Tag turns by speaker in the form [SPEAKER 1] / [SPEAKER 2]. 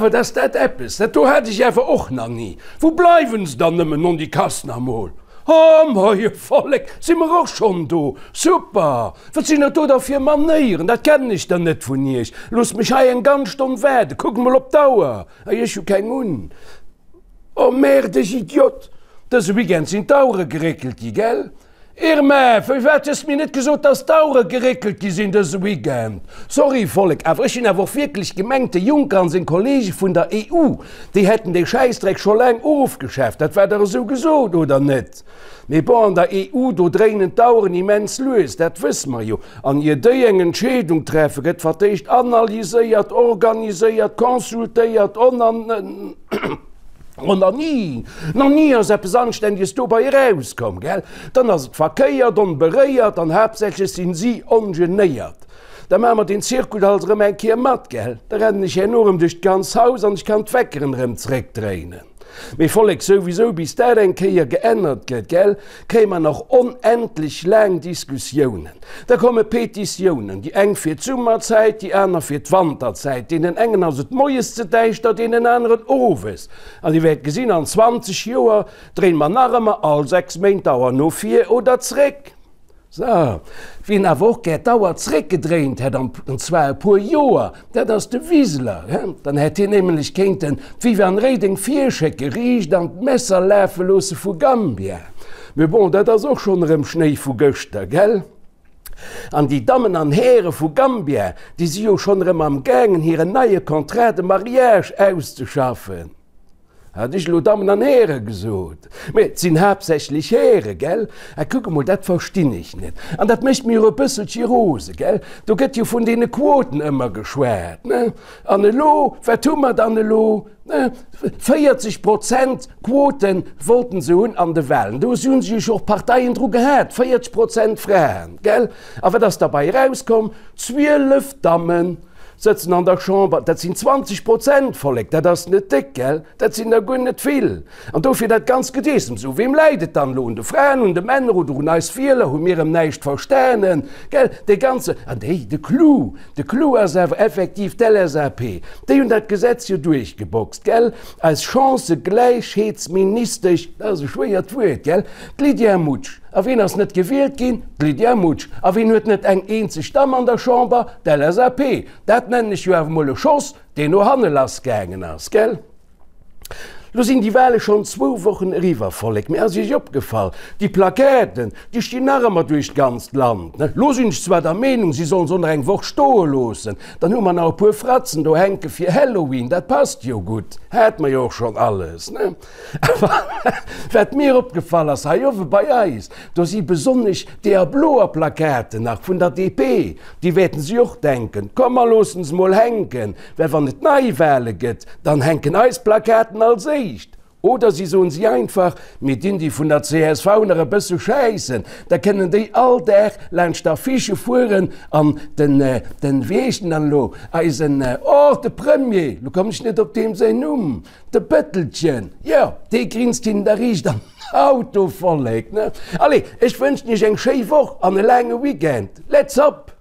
[SPEAKER 1] Awer dass dat eppes, dat do hat ech awer och nach ni. Wou bleiwen se dann nëmmen, non déi Kass nach mol? Oh moie Vollek, si mer och schonn do? Super! Wat sinn dat do da fir Manéieren, dat kennen ech der net vun iech. Loosst mech hei eng ganz Stonn waarden, kuckt mol op d'Auer. Ei, ech hu keng un. Oh merde, ech Idiot! Dëse Weekend sinn d'Auere geréckelt gi, gell? Irma, firwat hues de mir net gesot, dass d'Auere geréckelt gi sinn dëse Weekend? Sorry Vollek, awer ech hunn awer och wierklech gemengt, de Juncker an seng Kollege vun der EU, déi hätten dee Schäissdreck scho laang ofgeschaaft. Dat war dach esou gesot, oder net? Mee bon, an der EU, do dréinen d'Aueren immens lues, dat wësse mer jo. An ier déi eng Entscheedung treffen, gëtt fir d'éischt analyséiert, organiséiert, consultéiert, onan. Oh, nach ni, nach ni ass eppes Anständiges dobei erauskomm, gell? Dann ass et verkéiert, onberéiert an haaptsächlech sinn si ongenéiert. Da maache mer den Zirkus halt erëm eng Kéier mat, gell? Da rennen ech herno erëm duerch d'ganz Haus an ech kann d'Weckeren erëm zréckdréinen. Mee Vollek, souwisou, bis dat eng Kéier geännert gëtt, gell, kréie mer nach onendlech laang Diskussiounen. Da komme Petitiounen, déi eng fir d'Summerzäit, déi aner fir d'Wanterzäit. Deenen engen ass et moies ze däischter, deenen aneren owes. An Dir wäert gesinn, an 20 Joer dréine mer nach ëmmer all 6 Méint d'Auer no vir oder zréck. Sou, wien awer och gär d'Auer zréckgedréint hätt, an zwar e puer Joer, dat ass de Wiseler. Dann hätt hien nämlech kéinten d'Viviane Reding virschécke, riicht an d'Messer lafe loosse vu Gambia. Mee bon, dat ass och schonn erëm Schnéi vu gëschter, gell? An déi Dammen an Häre vu Gambia, déi si jo schonn erëm am gaangen, hiren neie Contrat de mariage auszeschaffen. Hat ech elo Dammen an Häre gesot? Mä et sinn haaptsächlech Häre, gell? A kuck emol, dat verstinn ech net. An dat mécht mir och e bësselche rose, gell? Do gëtt jo vun deene Quoten ëmmer geschwat, ne? An elo, wat hu mer dann elo? Ne? 40 Prozent Quote wollten se hunn an de Wahlen. Do hu sech och Parteien dru gehat, 40 Prozent Fraen, gell? A wat ass derbei erauskomm? 12 Dammen. Sëtzen an der Chamber, dat sinn 20 Prozent, Vollek, dat ass net déck, gell? Dat sinn der guer net vill. An dofir dat ganzt Gedeessems. U weem läit et dann elo? Un de Fraen, un de Männer oder un eis Wieler? Hu mir erëm näischt verstanen, gell? Dee ganze, an déi, de Clou, de Clou ass awer effektiv d'LSAP. Déi hunn dat Gesetz jo duerchgeboxt, gell? Eis Chancëgläichheetsministesch, dat ass e schwéiert Wuert, gell? D'Lydia Mutsch. A wien ass net gewielt ginn? D'Lydia Mutsch. A wien huet net eng eenzeg Damm an der Chamber? D'LSAP. Dat nennen ech jo awer mol e Schoss, deen no hanne lass gaangen ass, gell? Lo sinn déi Wahle schonn zwou Wochen eriwwer, Vollek. Mee ass Iech opgefall, déi Plaquetten, déi stinn nach ëmmer duerch d'ganzt Land, ne? Lo sinn ech zwar der Meenung, si sollen se och nach eng Woch stoe loossen, dann hu mer nach e puer Fratzen do hänke fir Halloween, dat passt jo gutt, hat mer jo och schonn alles, ne? Awer wat mir opgefall ass, hei owe bei eis, do si besonnesch deeër bloer Plakaten nach vun der DP, déi wäerten si och denken, komm mer loossen se mol hänken, well wann et Neiwahle gëtt, dann hänken eis Plakaten als éischt. Oder si soen si einfach, mir dinn déi vun der csv nach e bësse schäissen, da kënnen déi all Dag laanscht d'Affichë fueren an den, den, wéi heescht en dann elo, eisen, oh, de Premier, lo kommen ech net op deem säin Numm, De Bëttelchen, jo, dee grinst hinnen da riicht an den Auto, Vollek, ne? Allez, ech wënschen iech eng schéi Woch an e laange Weekend. Let's up!